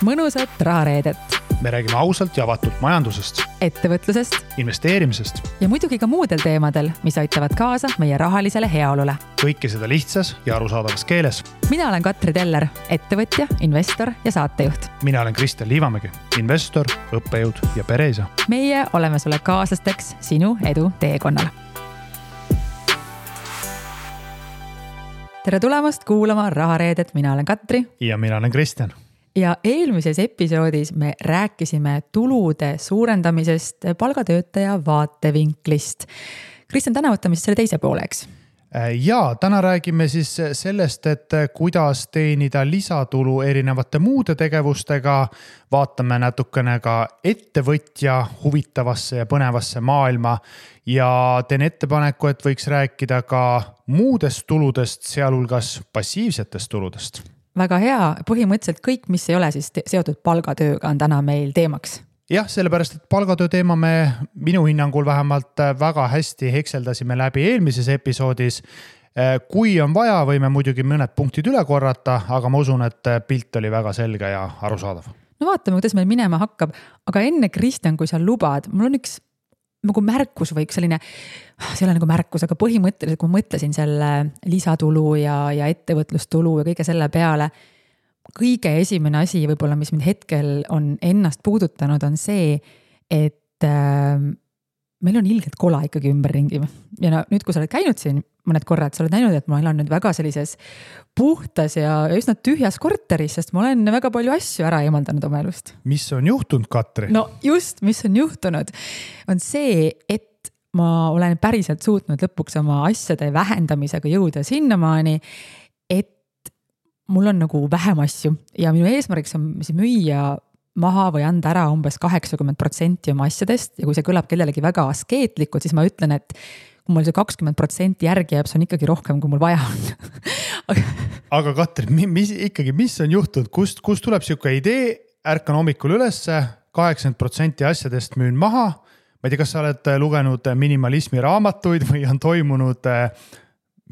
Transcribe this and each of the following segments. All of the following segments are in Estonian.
mõnusat rahareedet. Me räägime ausalt ja avatult majandusest, ettevõtlusest investeerimisest ja muidugi ka muudel teemadel, mis aitavad kaasa meie rahalisele heaolule. Kõike seda lihtsas ja arusaadavas keeles. Mina olen Katri Teller, ettevõtja, investor ja saatejuht. Mina olen Kristjan Liivamägi, investor, õppejõud ja pereisa. Meie oleme sulle kaaslasteks sinu edu teekonnal. Tere tulemast kuulama rahareedet, mina olen Katri. Ja mina olen Kristjan. Ja eelmises episoodis me rääkisime tulude suurendamisest palgatöötaja vaatevinklist. Kristjan, täna võtame siis selle teise pooleks. Ja täna räägime siis sellest, et kuidas teenida lisatulu erinevate muude tegevustega. Vaatame natukene ka ettevõtja huvitavasse ja põnevasse maailma ja teen ettepaneku, et võiks rääkida ka muudest tuludest, sealhulgas passiivsetest tuludest. Väga hea, põhimõtteliselt kõik, mis ei ole siis seotud palgatööga, on täna meil teemaks. Jah, sellepärast, et palgatöö teema me minu hinnangul vähemalt väga hästi hekseldasime läbi eelmises episoodis. Kui on vaja, võime muidugi mõned punktid üle korrata, aga ma usun, et pilt oli väga selge ja arusaadav. No vaatame, kuidas meil minema hakkab, aga enne Kristjan, kui sa lubad, mul on üks nagu märkus või selline, see ei ole nagu märkus, aga põhimõtteliselt, kui ma mõtlesin selle lisatulu ja ettevõtlustulu ja kõige selle peale, kõige esimene asi võib-olla, mis mind hetkel on ennast puudutanud, on see, et meil on ilgelt kola ikkagi ümberringi. Ja nüüd, kui sa oled käinud siin mõned korrad, sa oled näinud, et ma elan nüüd väga sellises puhtas ja üsna tühjas korteris, sest ma olen väga palju asju ära eemaldanud oma elust. Mis on juhtunud, Katri? No just, mis on juhtunud, on see, et ma olen päriselt suutnud lõpuks oma asjade vähendamisega jõuda sinnamaani, et mul on nagu vähem asju ja minu eesmärgiks on müüa maha või anda ära umbes 80% oma asjadest ja kui see kõlab kellelegi väga askeetlikult, siis ma ütlen, et kui mul see 20% järgi jääb, see on ikkagi rohkem, kui mul vaja on. Aga Katri, mis on juhtunud? Kust tuleb siuke idee, ärkan hommikul ülesse, 80% asjadest müün maha. Ma ei tea, kas sa oled lugenud minimalismi raamatuid või on toimunud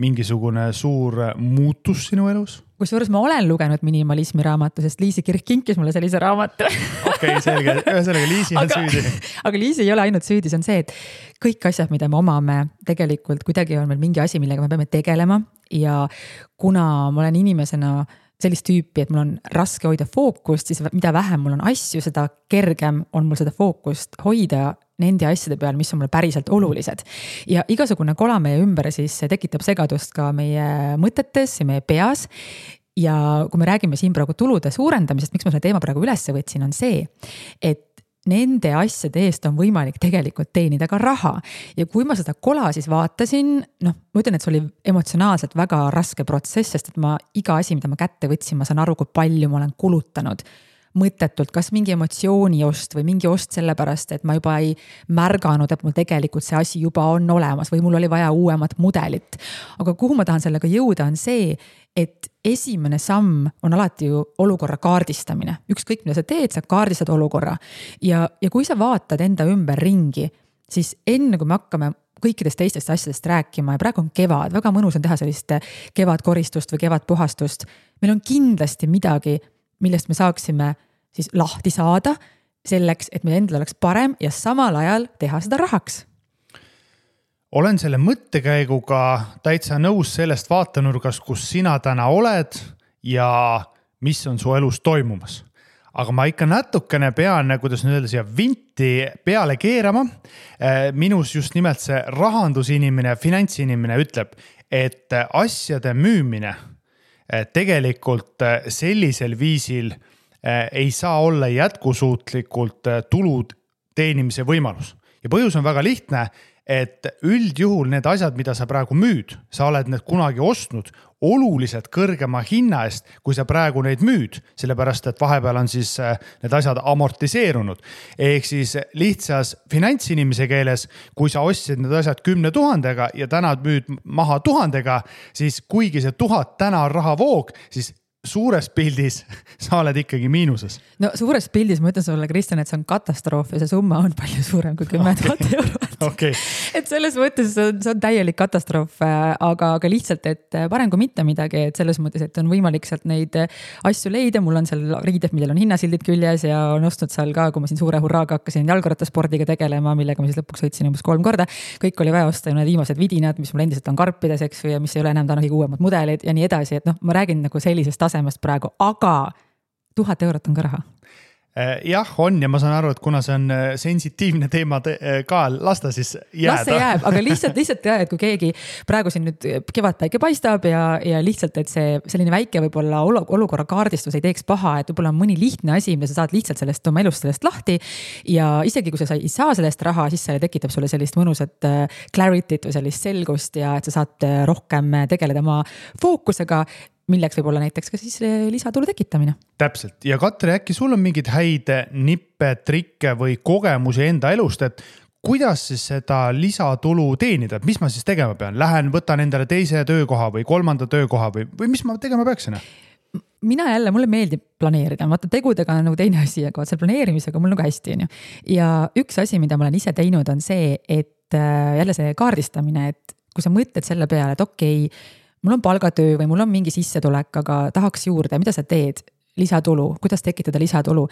mingisugune suur muutus sinu elus? Kusjuures ma olen lugenud minimalismi raamatu, sest Liisi Kirk kinkis mulle sellise raamatu. Okei, selge. Ühesõnaga Liisi on süüdi. Aga Liisi ei ole ainult süüdi, see on see, et kõik asjad, mida me omame, tegelikult kuidagi on meil mingi asi, millega me peame tegelema. Ja kuna ma olen inimesena sellist tüüpi, et mul on raske hoida fookust, siis mida vähem mul on asju, seda kergem on mul seda fookust hoida nende asjade peal, mis on mulle päriselt olulised. Ja igasugune kola meie ümber siis tekitab segadust ka meie mõtetes ja meie peas. Ja kui me räägime siin praegu tulude suurendamisest, miks ma selle teema praegu üles võtsin, on see, et nende asjade eest on võimalik tegelikult teenida ka raha. Ja kui ma seda kola siis vaatasin, ma ütlen, et see oli emotsionaalselt väga raske protsess, sest et ma iga asi, mida ma kätte võtsin, ma saan aru, kui palju ma olen kulutanud mõttetult, kas mingi emotsiooni ost või mingi ost sellepärast, et ma juba ei märganud, et mul tegelikult see asi juba on olemas või mul oli vaja uuemat mudelit. Aga kuhu ma tahan sellega jõuda on see, et esimene samm on alati ju olukorra kaardistamine. Ükskõik, mida sa teed, sa kaardistad olukorra. Ja kui sa vaatad enda ümber ringi, siis enne kui me hakkame kõikidest teistest asjadest rääkima ja praegu on kevad, väga mõnus on teha sellist kevadkoristust või kevadpuhastust. Meil on kindlasti midagi, millest me saaksime siis lahti saada selleks, et meil endal oleks parem ja samal ajal teha seda rahaks. Olen selle mõttekäiguga täitsa nõus sellest vaatenurgas, kus sina täna oled ja mis on su elus toimumas. Aga ma ikka natukene pean, kuidas nüüd öelda, siia vinti peale keerama. Minus just nimelt see rahandusinimene, finantsinimene ütleb, et asjade müümine tegelikult sellisel viisil ei saa olla jätkusuutlikult tulud teenimise võimalus. Ja põhjus on väga lihtne, et üldjuhul need asjad, mida sa praegu müüd, sa oled need kunagi ostnud oluliselt kõrgema hinna eest, kui sa praegu neid müüd, sellepärast, et vahepeal on siis need asjad amortiseerunud. Ehk siis lihtsas finantsinimese keeles, kui sa ostsid need asjad 10 000 ja täna müüd maha 1000, siis kuigi see 1000 täna on rahavoog, siis suures pildis sa oled ikkagi miinuses. No suures pildis ma ütlen sulle, Kristjan, et see on katastroof ja see summa on palju suurem kui 10 000 eurot. Okay. et selles mõttes see on täielik katastroof, aga lihtsalt, et parem kui mitte midagi, et selles mõttes, et on võimalik sealt neid asju leida, mul on seal riided, millel on hinnasildid küljes ja on ostnud seal ka, kui ma siin suure hurraaga hakkasin jalgrattaspordiga tegelema, millega ma siis lõpuks sõitsin umbes 3 korda. Kõik oli vaja osta ja need viimased vidinad, mis mul endiselt on karpides, eks, ja mis ei ole enam täna kõige uuemad mudelid ja nii edasi, et noh, ma räägin nagu sellisest tasemest praegu, aga 1000 eurot on ka raha. Jah, on ja ma saan aru, et kuna see on sensitiivne teema ka, lasta siis jääda. Las see jääb, aga lihtsalt jah, et kui keegi praegu siin nüüd kevadpäike paistab ja lihtsalt, et see selline väike võib-olla olukorra kaardistus ei teeks paha, et võib-olla on mõni lihtne asi, mida sa saad lihtsalt sellest oma elust sellest lahti ja isegi kui sa ei saa sellest raha, siis see tekitab sulle sellist mõnusat clarity't või sellist selgust ja et sa saad rohkem tegeleda oma fookusega, milleks võib olla näiteks ka siis lisatulu tekitamine. Täpselt. Ja Katri, äkki sul on mingid häid nippe, trikke või kogemusi enda elust, et kuidas siis seda lisatulu teenida, et mis ma siis tegema pean? Lähen, võtan endale teise töökoha või 3. töökoha või mis ma tegema peaksin? Mina jälle, mulle meeldib planeerida, vaata tegudega on nagu teine asi, aga selle planeerimisega mul nagu hästi on ju. Ja üks asi, mida ma olen ise teinud, on see, et jälle see kaardistamine, et kui sa mõtled selle peale, et okei, mul on palgatöö või mul on mingi sissetulek, aga tahaks juurde, mida sa teed? Lisatulu, kuidas tekitada lisatulu?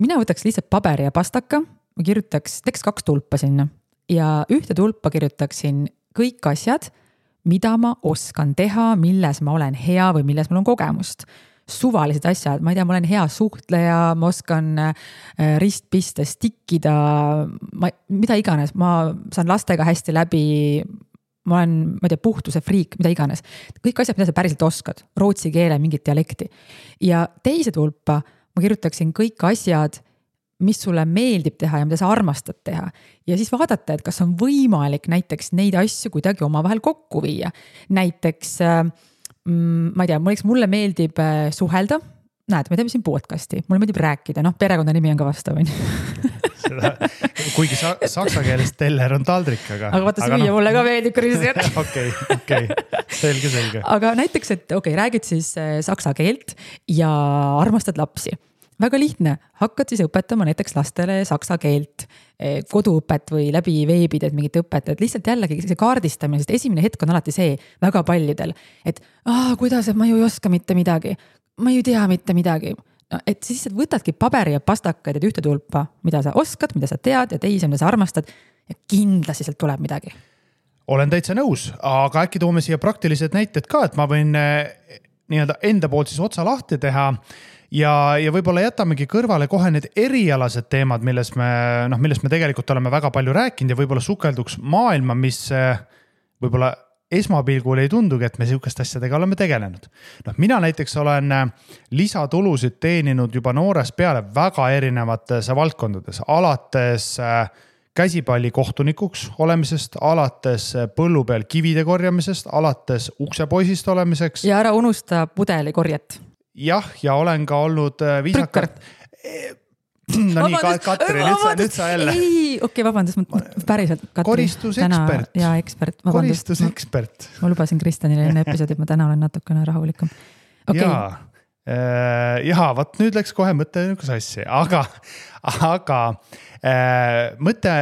Mina võtaks lihtsalt paberi ja pastaka, ma teeks 2 tulpa sinna ja ühte tulpa kirjutaksin kõik asjad, mida ma oskan teha, milles ma olen hea või milles mul on kogemust. Suvalised asjad, ma ei tea, ma olen hea suhtleja, ma oskan ristpistes tikkida, mida iganes, ma saan lastega hästi läbi, ma olen, ma ei tea, puhtuse friik, mida iganes. Kõik asjad, mida sa päriselt oskad, rootsi keele, mingit dialekti. Ja teise tulpa ma kirjutaksin kõik asjad, mis sulle meeldib teha ja mida sa armastad teha. Ja siis vaadata, et kas on võimalik näiteks neid asju kuidagi omavahel kokku viia. Näiteks, ma ei tea, mulle meeldib suhelda. Näed, me teeme siin podcasti, mulle meeldib rääkida, perekonna nimi on ka vastav. Kuigi saksa keeles teller on taldrik, aga vaata süüa mulle ka meeldib, Kristjan. Okei, selge. Aga näiteks, et räägid siis saksa keelt ja armastad lapsi. Väga lihtne, hakkad siis õpetama näiteks lastele saksa keelt, koduõpet või läbi veebid, et mingit õpet, et lihtsalt jällegi see kaardistamine, sest esimene hetk on alati see väga paljudel, et kuidas, et ma ju ei oska mitte midagi, ma ju tea mitte midagi. No, et siis võtadki paberi ja pastakaid, et ühte tulpa, mida sa oskad, mida sa tead ja teise, mida sa armastad ja kindlasti sealt tuleb midagi. Olen täitsa nõus, aga äkki toome siia praktilised näited ka, et ma võin nii-öelda enda poolt siis otsa lahti teha ja võib-olla jätamegi kõrvale kohe need erialased teemad, millest me tegelikult oleme väga palju rääkinud ja võib-olla sukelduks maailma, mis võib-olla esmapilgul ei tundugi, et me sihukest asjadega oleme tegelenud. Mina näiteks olen lisatulusid teeninud juba noores peale väga erinevates valdkondades, alates käsipalli kohtunikuks olemisest, alates põllu peal kivide korjamisest, alates uksepoisist olemiseks. Ja ära unusta pudeli korjet. Jah, ja olen ka olnud viisakalt. No nii, Katri, nüüd sa jälle. Ei, okei, vabandust, päriselt Katri. Koristusekspert. Ja ekspert, vabandust. Koristusekspert. Ma lubasin Kristjanile enne episoodi, et ma täna olen natukene rahulikum. Okay. Vaat nüüd läks kohe mõte sassi, aga mõte,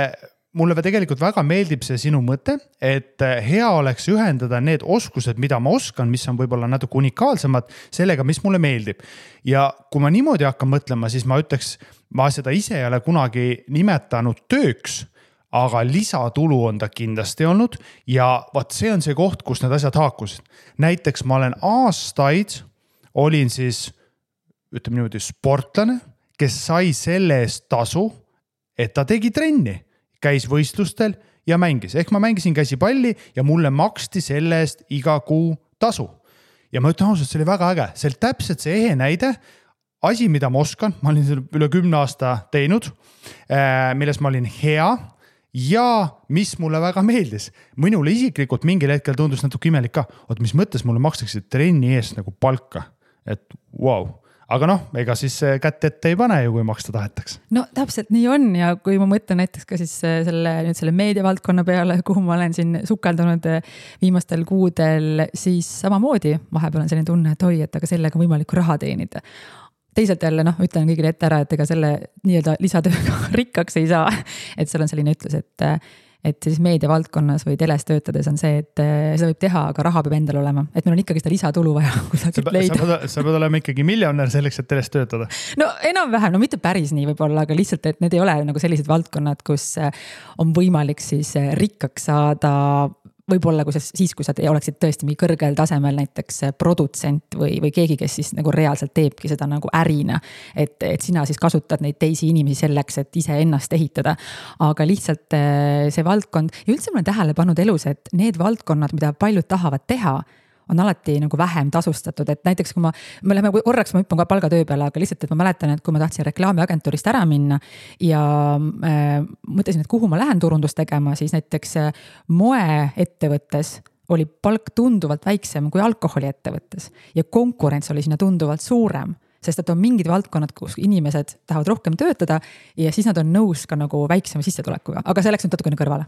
mulle tegelikult väga meeldib see sinu mõte, et hea oleks ühendada need oskused, mida ma oskan, mis on võib-olla natuke unikaalsemad sellega, mis mulle meeldib. Ja kui ma niimoodi hakkan mõtlema, siis ma ütleks, ma seda ise ei ole kunagi nimetanud tööks, aga lisatulu on ta kindlasti olnud ja vaat see on see koht, kus need asjad haakusid. Näiteks ma olen aastaid, olin siis, ütleme niimoodi, sportlane, kes sai selle eest tasu, et ta tegi trenni, käis võistlustel ja mängis. Ehk ma mängisin käsipalli ja mulle maksti selle eest iga kuu tasu. Ja ma ütlen ausalt, see oli väga äge. See oli täpselt see ehe näide, asi, mida ma oskan, ma olin selle üle 10 aasta teinud, milles ma olin hea ja mis mulle väga meeldis. Minule isiklikult mingil hetkel tundus natuke imelik ka, mis mõttes mulle makstakse trenni eest nagu palka. Et wow. Aga ega siis kätt ette ei pane ju, kui maksta tahetaks. No täpselt nii on ja kui ma mõtlen näiteks ka siis selle meediavaldkonna peale, kuhu ma olen siin sukeldunud viimastel kuudel, siis samamoodi vahepeal on selline tunne, et oi, et aga sellega on võimalik raha teenida. Teisalt jälle, ütlen kõigile ette ära, et ega selle nii-öelda lisatööga rikkaks ei saa. Et seal on selline ütlus, et et siis meediavaldkonnas või teles töötades on see, et seda võib teha, aga raha peab endal olema. Et meil on ikkagi seda lisatulu vaja kusagilt leida. Sa pead olema ikkagi miljonär selleks, et teles töötada. No enam-vähem, no mitte päris nii võib-olla, aga lihtsalt, et need ei ole nagu sellised valdkonnad, kus on võimalik siis rikkaks saada võib-olla kui sa oleksid tõesti mingi kõrgel tasemel näiteks produtsent või keegi, kes siis nagu reaalselt teebki seda nagu ärina. Et sina siis kasutad neid teisi inimesi selleks, et ise ennast ehitada. Aga lihtsalt see valdkond ja üldse ma olen tähele pannud elus, et need valdkonnad, mida paljud tahavad teha, on alati nagu vähem tasustatud, et näiteks kui me läheme korraks, ma hüppan ka palgatöö peale, aga lihtsalt, et ma mäletan, et kui ma tahtsin reklaamiagentuurist ära minna ja mõtlesin, et kuhu ma lähen turundust tegema, siis näiteks moeettevõttes oli palk tunduvalt väiksem kui alkoholiettevõttes ja konkurents oli sinna tunduvalt suurem. Sest et on mingid valdkonnad, kus inimesed tahavad rohkem töötada ja siis nad on nõus ka nagu väiksema sissetulekuga, aga see läks nüüd natukene kõrvale.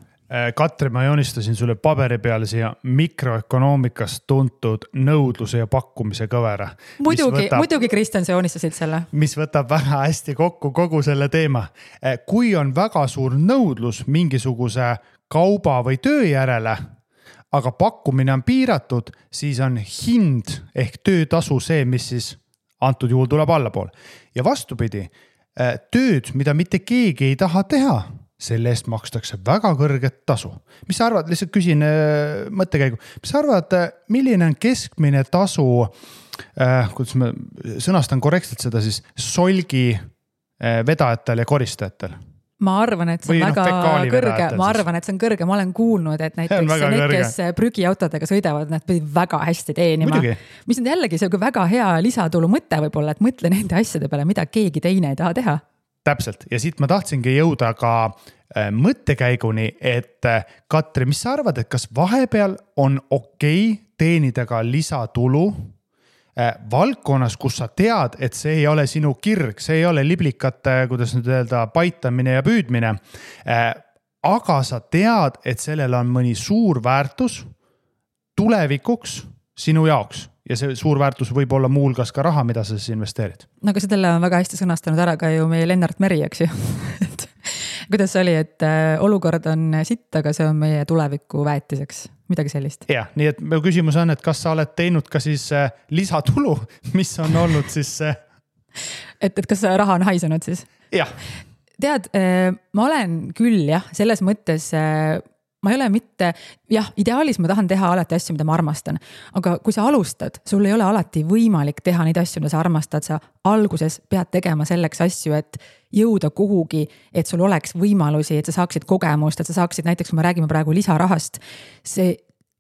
Katri, ma joonistasin sulle paberi peale siia mikroökonoomikast tuntud nõudluse ja pakkumise kõvera. Muidugi Kristjan, sa joonistasid selle. Mis võtab väga hästi kokku kogu selle teema. Kui on väga suur nõudlus mingisuguse kauba või töö järele, aga pakkumine on piiratud, siis on hind ehk töötasu see, mis siis antud juhul tuleb allapool. Ja vastupidi, tööd, mida mitte keegi ei taha teha, selle eest makstakse väga kõrget tasu. Mis sa arvad, lihtsalt küsin mõttekäigu, mis sa arvad, milline on keskmine tasu, kuidas ma sõnastan korrektselt seda siis, solgi vedajatel ja koristajatel? Ma arvan, et see on väga kõrge. Ma arvan, et see on kõrge. Ma olen kuulnud, et näiteks need, kes prügiautodega sõidavad, nad pidid väga hästi teenima. Muidugi. Mis on jällegi see väga hea lisatulu mõte võib-olla, et mõtle nende asjade peale, mida keegi teine ei taha teha. Täpselt. Ja siit ma tahtsingi jõuda ka mõttekäiguni, et Katri, mis sa arvad, et kas vahepeal on okei teenida ka lisatulu valdkonnas, kus sa tead, et see ei ole sinu kirg, see ei ole liblikate, kuidas nüüd öelda, paitamine ja püüdmine. Aga sa tead, et sellel on mõni suur väärtus tulevikuks sinu jaoks. Ja see suur väärtus võib olla muulgas ka raha, mida sa siis investeerid. No aga selle on väga hästi sõnastanud ära ka ju meie Lennart Meri, eks ju. Kuidas see oli, et olukord on sitt, aga see on meie tuleviku väetiseks. Midagi sellist. Ja, nii et mu küsimus on, et kas sa oled teinud ka siis lisatulu, mis on olnud siis... Et kas raha on haisenud siis? Jah. Tead, ma olen küll jah, selles mõttes ma ei ole mitte, jah, ideaalis ma tahan teha alati asju, mida ma armastan, aga kui sa alustad, sul ei ole alati võimalik teha neid asju, mida sa armastad, sa alguses pead tegema selleks asju, et jõuda kuhugi, et sul oleks võimalusi, et sa saaksid kogemust, et sa saaksid näiteks, kui me räägime praegu lisarahast,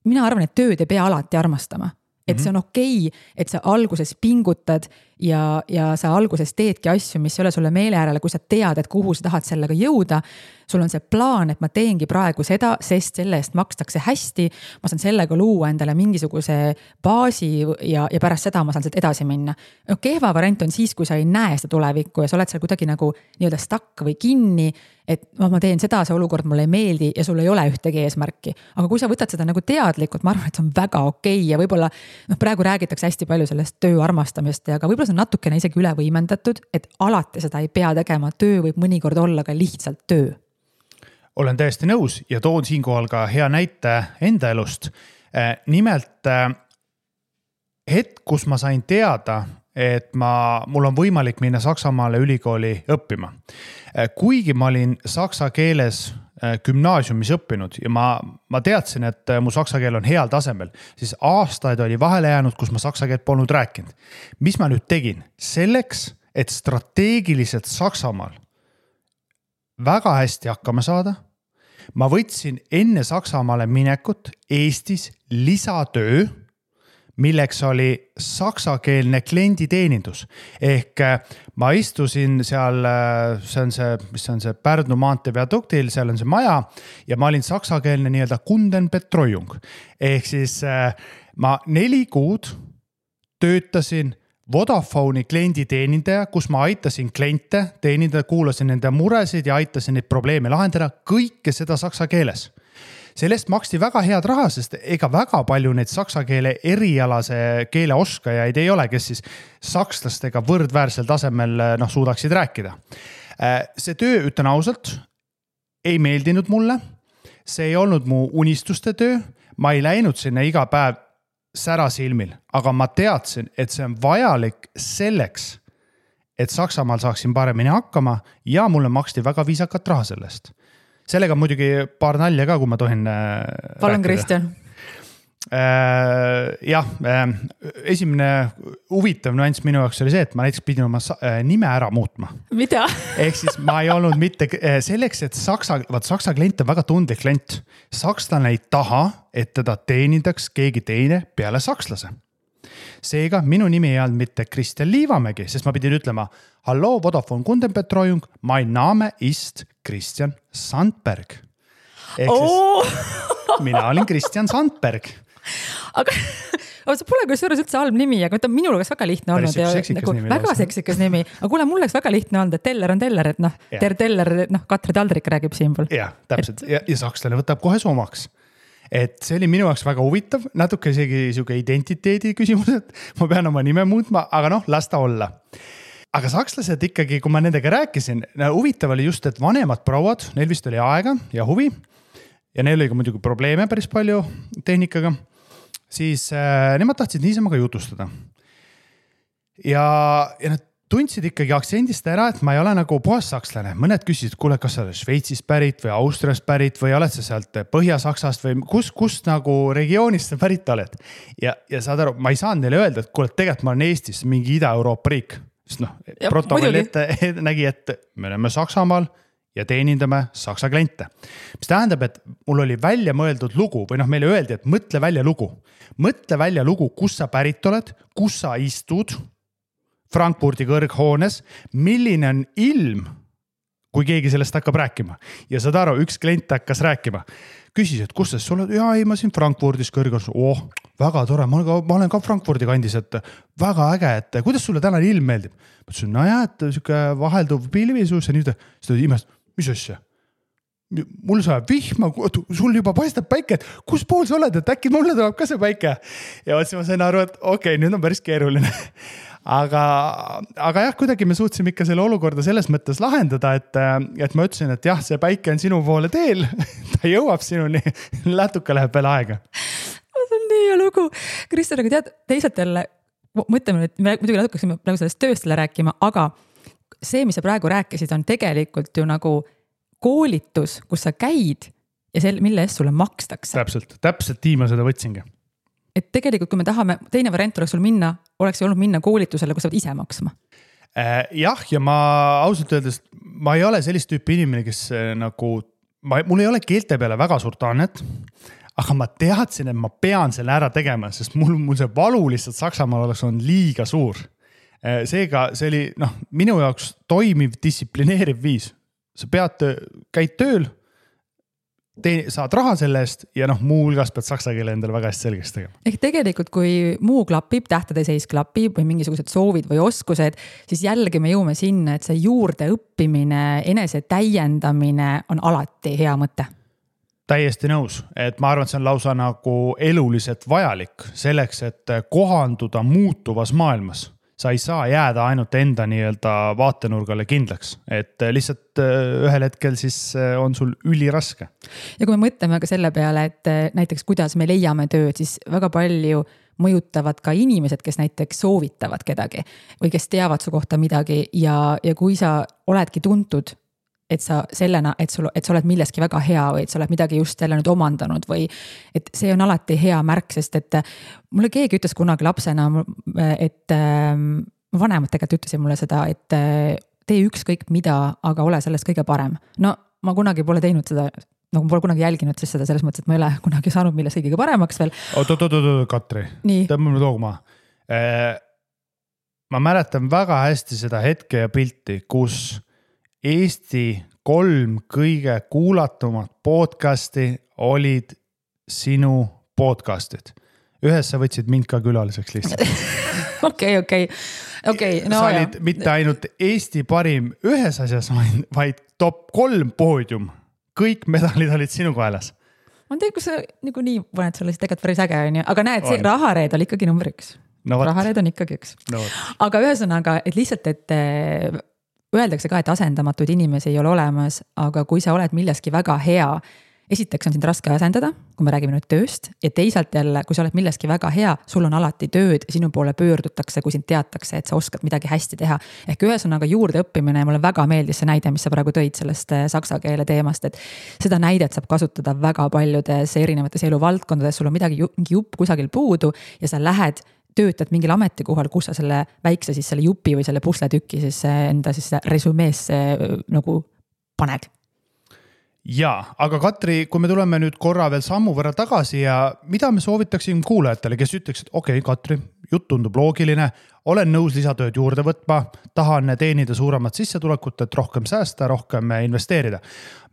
mina arvan, et tööd ei pea alati armastama. Et see on okei, et sa alguses pingutad ja sa alguses teedki asju, mis ei ole sulle meele äärele, kui sa tead, et kuhu sa tahad sellega jõuda. Sul on see plaan, et ma teengi praegu seda, sest selle eest makstakse hästi. Ma saan sellega luua endale mingisuguse baasi ja pärast seda ma saan sealt edasi minna. Kehva variant on siis, kui sa ei näe seda tulevikku ja sa oled seal kuidagi nagu nii-öelda stuck või kinni, et ma teen seda, see olukord mulle ei meeldi ja sul ei ole ühtegi eesmärki. Aga kui sa võtad seda nagu teadlikult, ma arvan, et see on väga okei ja võib-olla praegu räägitakse hästi palju sellest töö armastamist ja ka võib-olla see on natukene isegi üle võimendatud, et alati seda ei pea tegema, töö võib mõnikord olla ka lihtsalt töö. Olen täiesti nõus ja toon siinkohal ka hea näite enda elust. Nimelt hetk, kus ma sain teada, et mul on võimalik minna Saksamaale ülikooli õppima. Kuigi ma olin saksa keeles gümnaasiumis õppinud ja ma teadsin, et mu saksa keel on heal tasemel, siis aastaid oli vahele jäänud, kus ma saksa keelt polnud rääkinud. Mis ma nüüd tegin? Selleks, et strateegiliselt Saksamaal väga hästi hakkama saada, ma võtsin enne Saksamaale minekut Eestis lisatöö, milleks oli saksakeelne klienditeenindus. Ehk ma istusin seal, mis on see Pärnu maantee viaduktil, seal on see maja ja ma olin saksakeelne nii-öelda Kundenbetreuung. Ehk siis ma 4 kuud töötasin Vodafone'i klienditeenindaja, kus ma aitasin kliente teenindada, kuulasin nende muresid ja aitasin neid probleeme lahendada, kõike seda saksa keeles. Sellest maksti väga head raha, sest ega väga palju neid saksa keele erialase keele oskajaid ei ole, kes siis sakslastega võrdväärsel tasemel suudaksid rääkida. See töö, ütlen ausalt, ei meeldinud mulle. see ei olnud mu unistuste töö, ma ei läinud sinna iga päev särasilmil, aga ma teadsin, et see on vajalik selleks, et Saksamaal saaksin paremini hakkama ja mulle maksti väga viisakat raha sellest. Sellega muidugi paar nalja ka, kui ma tohin Palun, Kristjan. Jah, esimene huvitav nüanss minu jaoks oli see, et ma näiteks pidin oma nime ära muutma. Mida? Ehk siis ma ei olnud mitte selleks, et Saksa klient on väga tundlik klient. Sakslane ei taha, et teda teenindaks keegi teine peale sakslase. Seega minu nimi ei olnud mitte Kristjan Liivamägi, sest ma pidin ütlema Hallo, Vodafone Kundenbetreuung, mein Name ist Kristjan Sandberg. Ehk mina olin Kristjan Sandberg. Aga see pole kusjuures üldse halb nimi, aga minul oleks väga lihtne olnud. Väga seksikas nimi. Aga kuule, mul oleks väga lihtne olnud, et teller on teller, et teller, Katri Taldrik räägib siinpool. Jah, täpselt. Ja sakslane võtab kohe somaks. Et see oli minu jaoks väga huvitav, natuke isegi siuke identiteedi küsimus, et ma pean oma nime muutma, aga las ta olla. Aga sakslased ikkagi, kui ma nendega rääkisin, huvitav oli just, et vanemad prouad, neil vist oli aega ja huvi ja neil oli ka muidugi probleeme päris palju tehnikaga, siis nemad tahtsid niisama ka jutustada. Ja nad tundsid ikkagi aktsendist ära, et ma ei ole nagu puhas sakslane. Mõned küsisid, kuule, kas sa oled Šveitsist pärit või Austriast pärit või oled sa sealt Põhja-Saksast või kust nagu regioonist sa pärit oled. Ja saad aru, ma ei saanud neile öelda, et kuule, tegelikult ma olen Eestis, mingi Ida-Euroopa riik. Sest protokoll ette nägi, et me oleme Saksamaal ja teenindame Saksa kliente. Mis tähendab, et mul oli välja mõeldud lugu või meile öeldi, et mõtle välja lugu. Mõtle välja lugu, kus sa pärit oled, kus sa istud Frankfurdi kõrghoones, milline on ilm, kui keegi sellest hakkab rääkima. Ja saad aru, üks klient hakkas rääkima. Küsis, et kus sul oled? Ei, ma siin Frankfurdis kõrghoones. Väga tore, ma olen ka Frankfurdi kandis, et väga äge, et kuidas sulle täna ilm meeldib? Ma ütlesin, et siuke vahelduv pilvisus ja nüüd seda imest, mis asja? Mul saab vihma, sul juba paistab päike, et kus pool sa oled, et äkki mulle tuleb ka see päike. Ja ma sain aru, et okei, nüüd on päris keeruline. Aga jah, kuidagi me suutsime ikka selle olukorda selles mõttes lahendada, et ma ütlesin, et jah, see päike on sinu poole teel, ta jõuab sinuni, natuke läheb veel aega. See on nii hea lugu. Kristjan, aga tead, teisalt jälle, mõtleme, et me muidugi natuke praegu sellest tööstele rääkima, aga see, mis sa praegu rääkisid, on tegelikult ju nagu koolitus, kus sa käid ja mille eest sulle makstakse. Täpselt tiima seda võtsingi. Et tegelikult, kui me tahame, teine variant oleks sul minna, oleks olnud minna koolitusele, kus sa pead ise maksma. Jah, ja ma ausalt öeldes, ma ei ole sellist tüüpi inimene, kes nagu, mul ei ole keelte peale väga suurt annet, aga ma teadsin, et ma pean selle ära tegema, sest mul see valu lihtsalt Saksamaal oleks on liiga suur. Seega see oli minu jaoks toimiv, distsiplineeriv viis. Sa käid tööl, saad raha selle eest ja muu hulgas pead saksa keele endale väga hästi selgeks tegema. Ehk tegelikult, kui muu klapib, tähtede seis klapib või mingisugused soovid või oskused, siis jällegi me jõuame sinna, et see juurde õppimine, enese täiendamine on alati hea mõte. Täiesti nõus, et ma arvan, et see on lausa nagu eluliselt vajalik selleks, et kohanduda muutuvas maailmas. Sa ei saa jääda ainult enda vaatenurgale kindlaks, et lihtsalt ühel hetkel siis on sul üliraske. Ja kui me mõtleme ka selle peale, et näiteks kuidas me leiame tööd, siis väga palju mõjutavad ka inimesed, kes näiteks soovitavad kedagi või kes teavad su kohta midagi ja kui sa oledki tuntud, et sa sellena, et sa oled milleski väga hea või et sa oled midagi just jälle nüüd omandanud või et see on alati hea märk, sest et mulle keegi ütles kunagi lapsena, et vanemad tegelikult ütlesid mulle seda, et tee ükskõik mida, aga ole sellest kõige parem. No ma kunagi pole teinud seda, nagu pole kunagi jälginud siis seda selles mõttes, et ma ei ole kunagi saanud millest kõige paremaks veel. Katri, tõmbame toogma. Ma mäletan väga hästi seda hetke ja pilti, kus Eesti 3 kõige kuulatumat podcasti olid sinu podcastid. Ühes sa võtsid mind ka külaliseks lihtsalt. Okei. Sa olid mitte ainult Eesti parim ühes asjas, vaid top 3 poodium. Kõik medalid olid sinu kaelas. Ma tean, kus sa nagu nii paned sulle siis tegelikult päris äge on ju. Aga näed, see rahareed oli ikkagi number 1. Rahareed on ikkagi 1. Aga ühesõnaga, et lihtsalt, et öeldakse ka, et asendamatuid inimesi ei ole olemas, aga kui sa oled milleski väga hea, esiteks on sind raske asendada, kui me räägime nüüd tööst ja teisalt jälle, kui sa oled milleski väga hea, sul on alati tööd, sinu poole pöördutakse, kui sind teatakse, et sa oskad midagi hästi teha. Ehk ühesõnaga juurde õppimine ja mulle väga meeldis see näide, mis sa praegu tõid sellest saksa keele teemast, et seda näidet saab kasutada väga paljudes erinevates eluvaldkondades, sul on mingi jupp kusagil puudu ja sa lähed töötad mingil ametikohal, kus sa selle väikse siis selle jupi või selle pusletükki siis enda siis resumeesse nagu paned. Jaa, aga Katri, kui me tuleme nüüd korra veel sammu võrra tagasi ja mida me soovitaksin kuulajatele, kes ütleks, et okei, Katri, jutt tundub loogiline, olen nõus lisatööd juurde võtma, tahan teenida suuremat sissetulekut, et rohkem säästa, rohkem investeerida.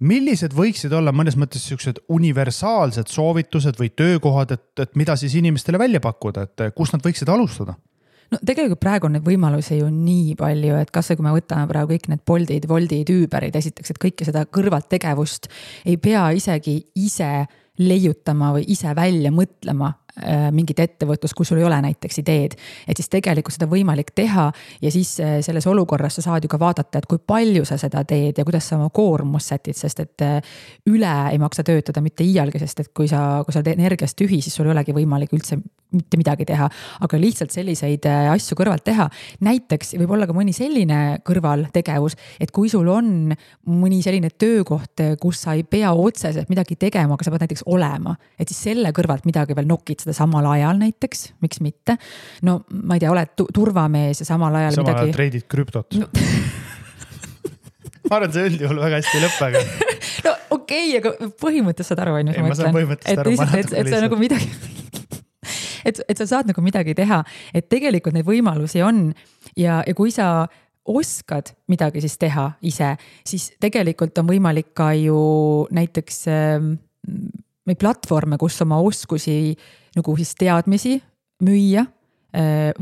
Millised võiksid olla mõnes mõttes sellised universaalsed soovitused või töökohad, et mida siis inimestele välja pakkuda, et kus nad võiksid alustada? No tegelikult praegu on neid võimalusi ju nii palju, et kas kui me võtame praegu kõik need Boltid, Woltid, Uberid, esiteks, et kõike seda kõrvalt tegevust ei pea isegi ise leiutama või ise välja mõtlema mingit ettevõtlust, kui sul ei ole näiteks ideed, et siis tegelikult seda võimalik teha ja siis selles olukorras sa saad ju ka vaadata, et kui palju sa seda teed ja kuidas sa oma koormust sätid, sest et üle ei maksa töötada mitte iialgi, sest et kui sa oled energiast tühi, siis sul ei olegi võimalik üldse mitte midagi teha, aga lihtsalt selliseid asju kõrvalt teha. Näiteks võib olla ka mõni selline kõrvaltegevus, et kui sul on mõni selline töökoht, kus sa ei pea otseselt midagi tegema, aga sa pead näiteks olema, et siis selle kõrvalt midagi veel nokid seda samal ajal näiteks, miks mitte. No ma ei tea, oled turvamees ja samal ajal samal midagi. Ajal treidid krüptot. No. Ma arvan, see üldjuhul väga hästi lõppega. No okei, aga põhimõttes saad aru, ma saan põhimõttest aru. Et see on nagu midagi et sa saad nagu midagi teha, et tegelikult neid võimalusi on ja kui sa oskad midagi siis teha ise, siis tegelikult on võimalik ka ju näiteks neid platvorme, kus oma oskusi nagu siis teadmisi müüa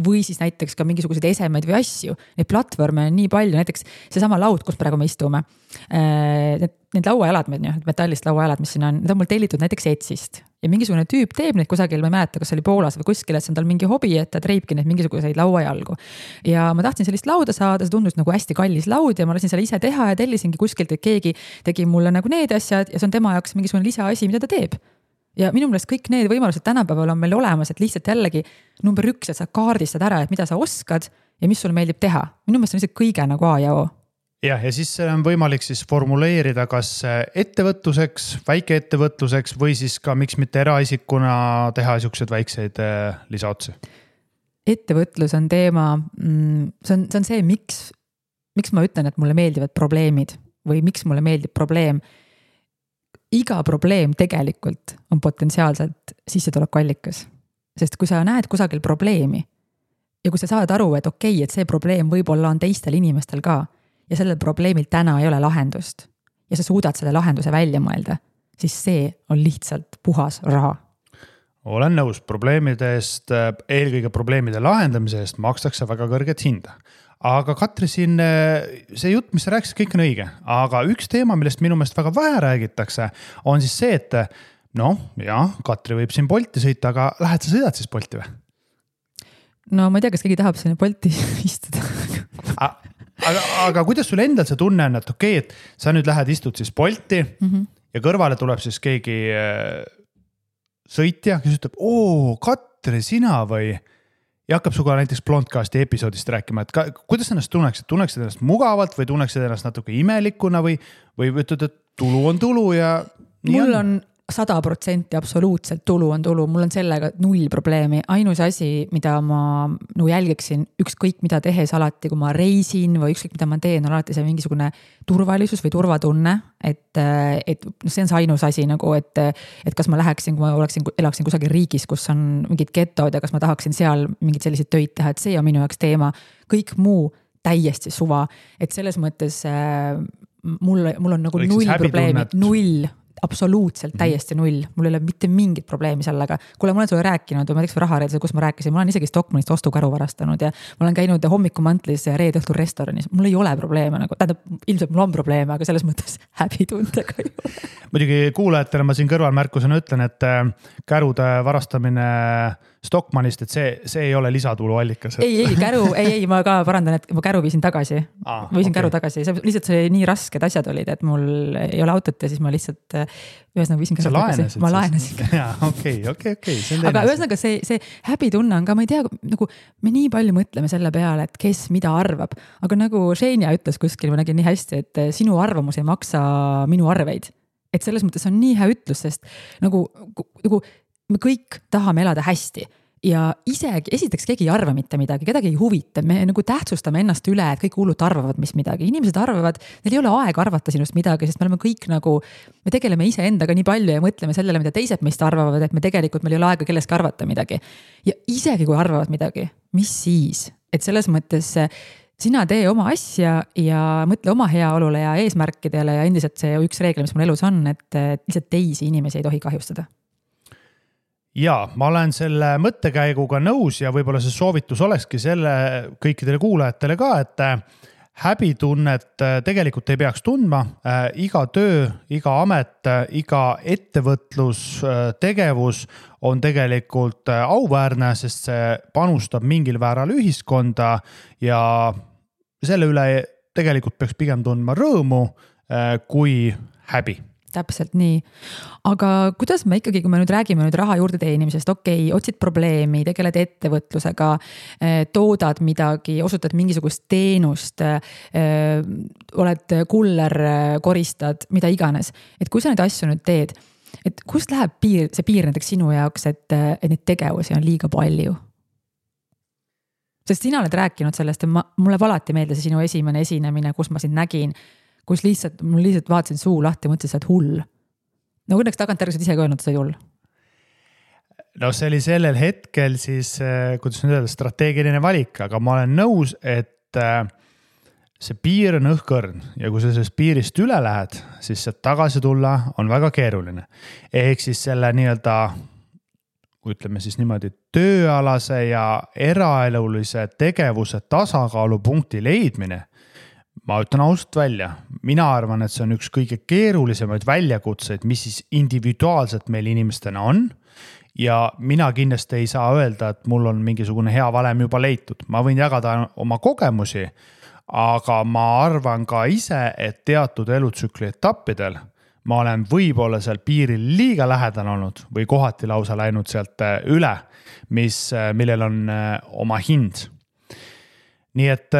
või siis näiteks ka mingisuguseid esemeid või asju. Neid platvorme on nii palju, näiteks seesama laud, kus praegu me istume. Need lauajalad, metallist lauajalad, mis siin on, need on mul tellitud näiteks Etsist. Ja mingisugune tüüp teeb neid kusagil, ma ei mäleta, kas oli Poolas või kuskil, et see on tal mingi hobi, et ta treibki neid mingisuguseid lauajalgu. Ja ma tahtsin sellist lauda saada, see tundus nagu hästi kallis laud ja ma lasin selle ise teha ja tellisingi kuskilt, et keegi tegi mulle nagu need asjad ja see on tema jaoks mingisugune lisaasi, mida ta teeb. Ja minu meelest kõik need võimalused tänapäeval on meil olemas, et lihtsalt jällegi number 1, et sa kaardistad ära, et mida sa oskad ja mis sul meeldib teha. Minu meelest on lihtsalt kõige nagu A ja O. Ja siis on võimalik siis formuleerida kas ettevõtluseks, väikeettevõtluseks või siis ka miks mitte eraisikuna teha siukseid väikseid lisaotsi. Ettevõtlus on teema, see on see, miks ma ütlen, et mulle meeldivad probleemid või miks mulle meeldib probleem. Iga probleem tegelikult on potentsiaalselt sissetulekuallikas, sest kui sa näed kusagil probleemi ja kui sa saad aru, et okei, et see probleem võib-olla on teistel inimestel ka ja sellel probleemil täna ei ole lahendust ja sa suudad selle lahenduse välja mõelda, siis see on lihtsalt puhas raha. Olen nõus, probleemide eest, eelkõige probleemide lahendamise eest makstakse väga kõrget hinda. Aga Katri siin, see jutt, mis sa rääkisid, kõik on õige. Aga üks teema, millest minu meelest väga vähe räägitakse, on siis see, et Katri võib siin Bolti sõita, aga lähed sa sõidad siis Bolti või? No ma ei tea, kas keegi tahab sinna Bolti istuda. Aga kuidas sul endal see tunne on, et okei, et sa nüüd lähed istud siis Bolti ja kõrvale tuleb siis keegi sõitja, kes ütleb, Katri, sina või? Ja hakkab suga näiteks Blondcasti episoodist rääkima, et kuidas ennast tunneksid? Tunneksid ennast mugavalt või tunneksid ennast natuke imelikuna või ütled, et tulu on tulu ja nii mul on 100% absoluutselt tulu on tulu, mul on sellega 0 probleemi. Ainus asi, mida ma jälgiksin ükskõik mida tehes alati, kui ma reisin või ükskõik mida ma teen, on alati see mingisugune turvalisus või turvatunne, et see on see ainus asi, et kas ma läheksin, kui ma elaksin kusagil riigis, kus on mingid getod ja kas ma tahaksin seal mingid sellised töid teha, et see on minu jaoks teema. Kõik muu täiesti suva, et selles mõttes mul on nagu 0 probleemi, 0 absoluutselt täiesti 0. Mul ei ole mitte mingit probleemi sellega. Kuule, ma olen sulle rääkinud, ma teeks rahareedse, kus ma rääkisin, ma olen isegi Stockmannist ostukaru varastanud ja ma olen käinud hommikumantlis ja reede õhtul restoranis. Mul ei ole probleeme, ilmselt mul on probleeme, aga selles mõttes häbitundega ei ole. Muidugi kuulajatele ma siin kõrvalmärkusena ütlen, et kärude varastamine Stockmannist, et see ei ole lisatulu allikas. Ei, ma ka parandan, et ma käru viisin tagasi. Käru tagasi, lihtsalt see nii rasked asjad olid, et mul ei ole autot ja siis ma lihtsalt ühesõnaga viisin käru tagasi. Ma laenasin. Okei. Aga ühesõnaga see häbitunne on ka, ma ei tea, nagu me nii palju mõtleme selle peale, et kes mida arvab, aga nagu Xenia ütles kuskil, ma nägin nii hästi, et sinu arvamus ei maksa minu arveid. Et selles mõttes on nii hea ütlus, sest nagu me kõik tahame elada hästi ja isegi esiteks keegi ei arva mitte midagi, kedagi ei huvita, me nagu tähtsustame ennast üle, et kõik hullult arvavad, mis midagi. Inimesed arvavad, neil ei ole aega arvata sinust midagi, sest me oleme kõik nagu, me tegeleme ise endaga nii palju ja mõtleme sellele, mida teised meist arvavad, et me tegelikult meil ei ole aega kelleski arvata midagi. Ja isegi kui arvavad midagi, mis siis? Et selles mõttes sina tee oma asja ja mõtle oma heaolule ja eesmärkidele ja endiselt see üks reegel, mis mul elus on, et lihtsalt teisi inimesi ei tohi kahjustada. Ja ma olen selle mõttekäiguga nõus ja võib-olla see soovitus olekski selle kõikidele kuulajatele ka, et häbitunnet tegelikult ei peaks tundma. Iga töö, iga amet, iga ettevõtlustegevus on tegelikult auväärne, sest see panustab mingil vääral ühiskonda ja selle üle tegelikult peaks pigem tundma rõõmu kui häbi. Täpselt nii. Aga kuidas me ikkagi, kui me nüüd räägime raha juurde teenimisest, otsid probleemi, tegeled ettevõtlusega, toodad midagi, osutad mingisugust teenust, oled kuller, koristad, mida iganes. Et kui sa neid asju nüüd teed, et kust läheb see piir näiteks sinu jaoks, et neid tegevusi on liiga palju? Sest sina oled rääkinud sellest, et mulle alati meeldis sinu esimene esinemine, kus ma sind nägin, kus mul lihtsalt vaatasin suu lahti ja mõtlesin, sa oled hull. No õnneks tagantjärgi ise ka öelnud, sa oled hull. No see oli sellel hetkel siis, kuidas nüüd öelda, strateegiline valik, aga ma olen nõus, et see piir on õhkõrn ja kui sa sellest piirist üle lähed, siis sealt tagasi tulla on väga keeruline. Ehk siis selle nii-öelda, ütleme siis niimoodi, tööalase ja eraelulise tegevuse tasakaalupunkti leidmine, ma ütlen ausalt välja, mina arvan, et see on üks kõige keerulisemaid väljakutseid, mis siis individuaalselt meil inimestena on ja mina kindlasti ei saa öelda, et mul on mingisugune hea valem juba leitud. Ma võin jagada oma kogemusi, aga ma arvan ka ise, et teatud elutsükli etappidel ma olen võib-olla seal piiril liiga lähedal olnud või kohati lausa läinud sealt üle, millel on oma hind. Nii et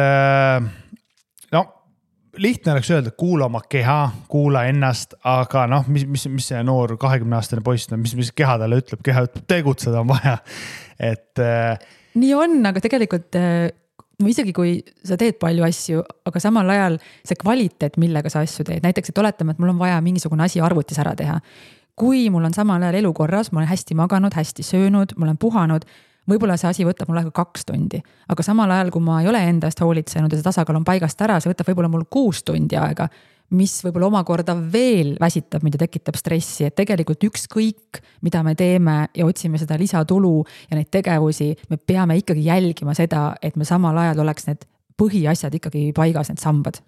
lihtne oleks öelda, kuula oma keha, kuula ennast, aga mis see noor 20-aastane poiss, mis keha talle ütleb, keha ütleb, tegutseda on vaja. Et nii on, aga tegelikult isegi kui sa teed palju asju, aga samal ajal see kvaliteet, millega sa asju teed, näiteks, et oletame, et mul on vaja mingisugune asi arvutis ära teha. Kui mul on samal ajal elukorras, ma olen hästi maganud, hästi söönud, ma olen puhanud, võib-olla see asi võtab mul aega 2 tundi, aga samal ajal, kui ma ei ole endast hoolitsenud ja see tasakaal on paigast ära, see võtab võib-olla mul 6 tundi aega, mis võib-olla omakorda veel väsitab, mida tekitab stressi, et tegelikult ükskõik, mida me teeme ja otsime seda lisatulu ja neid tegevusi, me peame ikkagi jälgima seda, et me samal ajal oleks need põhiasjad ikkagi paigas, need sambad.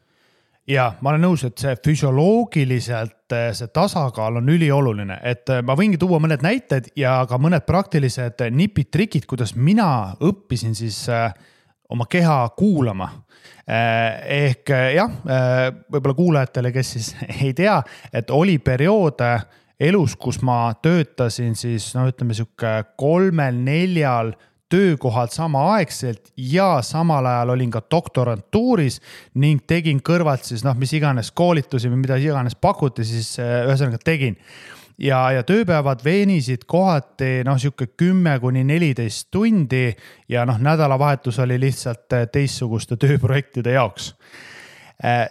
Ja ma olen nõus, et see füsioloogiliselt see tasakaal on ülioluline, et ma võingi tuua mõned näited ja ka mõned praktilised nipid, trikid, kuidas mina õppisin siis oma keha kuulama. Ehk jah, võib-olla kuulajatele, kes siis ei tea, et oli periood elus, kus ma töötasin siis, ütleme siuke 3-4 töökohad samaaegselt ja samal ajal olin ka doktorantuuris ning tegin kõrvalt siis mis iganes koolitusi või mida iganes pakuti, siis ühesõnaga tegin. Ja tööpäevad veenisid kohati siuke 10-14 tundi ja nädalavahetus oli lihtsalt teistsuguste tööprojektide jaoks.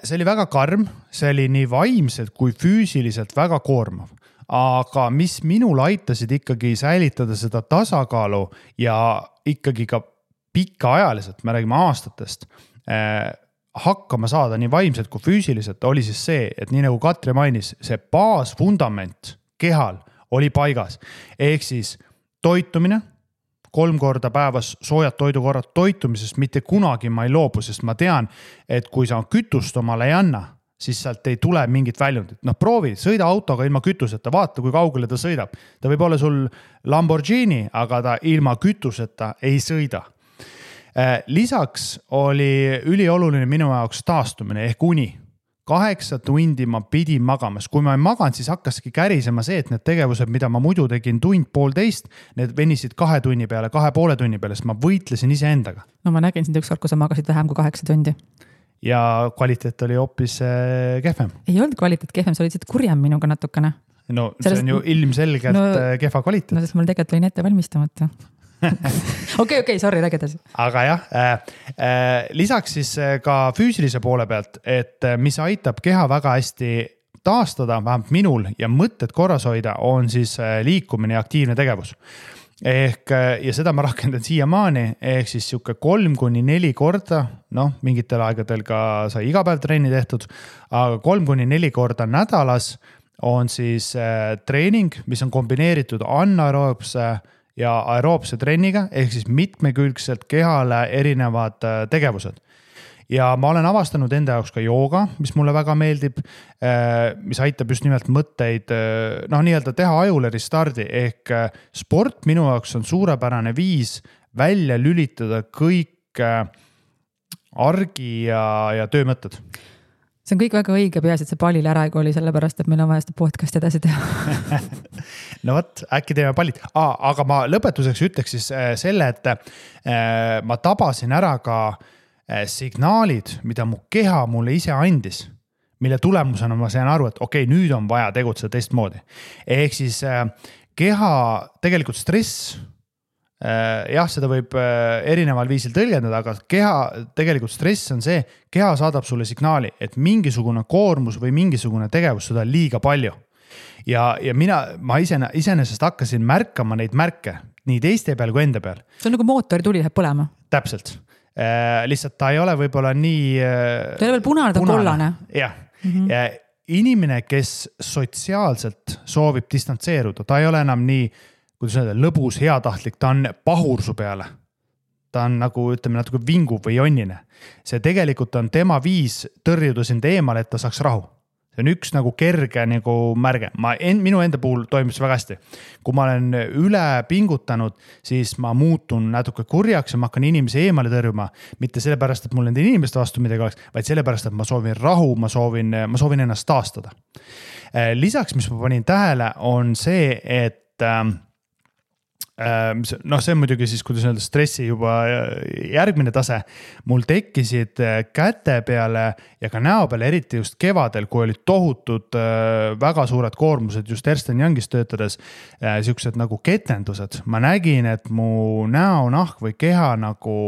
See oli väga karm, see oli nii vaimselt kui füüsiliselt väga koormav. Aga mis minul aitasid ikkagi säilitada seda tasakaalu ja ikkagi ka pikaajaliselt, me räägime aastatest, hakkama saada nii vaimselt kui füüsiliselt, oli siis see, et nii nagu Katri mainis, see baasfundament kehal oli paigas. Ehk siis toitumine, 3 korda päevas soojad toidukorrad toitumisest mitte kunagi ma ei loobu, sest ma tean, et kui sa kütust omale ei anna, siis sealt ei tule mingit väljundit. Noh, proovi, sõida autoga ilma kütuseta, vaata, kui kaugele ta sõidab. Ta võib olla sul Lamborghini, aga ta ilma kütuseta ei sõida. Lisaks oli ülioluline minu jaoks taastumine ehk uni. 8 tundi ma pidin magamas. Kui ma ei maganud, siis hakkaski kärisema see, et need tegevused, mida ma muidu tegin tund, poolteist, need venisid 2 tunni peale, 2,5 tunni peale, sest ma võitlesin ise endaga. No ma nägin sind ükskord, kui sa magasid vähem kui 8 tundi. Ja kvaliteet oli hoopis kehvem. Ei olnud kvaliteet kehvem, sa olid siit kurjem minuga natukene. No see on ju ilmselgelt kehva kvaliteet. No sest mul tegelikult olin ette valmistamata. Okei, sorry, räägi edasi. Aga jah, lisaks siis ka füüsilise poole pealt, et mis aitab keha väga hästi taastada, vähemalt minul ja mõtted korras hoida, on siis liikumine ja aktiivne tegevus. Ja seda ma rakendan siiamaani, ehk siis siuke 3-4 korda, mingitel aegadel ka sai iga päev trenni tehtud, aga 3-4 korda nädalas on siis treening, mis on kombineeritud anaeroobse ja aeroobse trenniga, ehk siis mitmekülgselt kehale erinevad tegevused. Ja ma olen avastanud enda jaoks ka jooga, mis mulle väga meeldib, mis aitab just nimelt mõtteid, nii-öelda teha ajule restardi, ehk sport minu jaoks on suurepärane viis välja lülitada kõik argi ja töömõtted. See on kõik väga õige, peaasi, et see pallil ära ei kooli, sellepärast, et meil on vaja seda podcast edasi teha. No võt, äkki teeme pallid. Aga ma lõpetuseks ütleks siis selle, et ma tabasin ära ka signaalid, mida mu keha mulle ise andis, mille tulemusena ma sain aru, et okei, nüüd on vaja tegutseda teistmoodi. Ehk siis keha tegelikult stress, jah, seda võib erineval viisil tõlgendada, aga keha, tegelikult stress on see, keha saadab sulle signaali, et mingisugune koormus või mingisugune tegevus seda on liiga palju. Ja ma iseenesest hakkasin märkama neid märke nii teiste peal kui enda peal. See on nagu mootori tuli läheb põlema. Täpselt. Lihtsalt ta ei ole võib-olla nii... Ta ei ole veel punane, ta on kollane. Jah. Inimene, kes sotsiaalselt soovib distantseeruda, ta ei ole enam nii kuidas öelda, lõbus, heatahtlik, ta on pahursu peale. Ta on nagu, ütleme, natuke vingu või jonnine. See tegelikult on tema viis tõrjuda sind eemale, et ta saaks rahu. See on üks nagu kerge nagu märge. Minu enda puhul toimis väga hästi. Kui ma olen üle pingutanud, siis ma muutun natuke kurjaks ja ma hakkan inimesi eemale tõrjuma. Mitte sellepärast, et mul nende inimeste vastu midagi oleks, vaid sellepärast, et ma soovin rahu, ma soovin ennast taastada. Lisaks, mis ma panin tähele, on see, et see on muidugi siis, kuidas öelda, stressi juba järgmine tase. Mul tekkisid käte peale ja ka näo peale, eriti just kevadel, kui olid tohutud väga suured koormused just Ernst & Youngis töötades, siuksed nagu ketendused. Ma nägin, et mu näo, nahk või keha nagu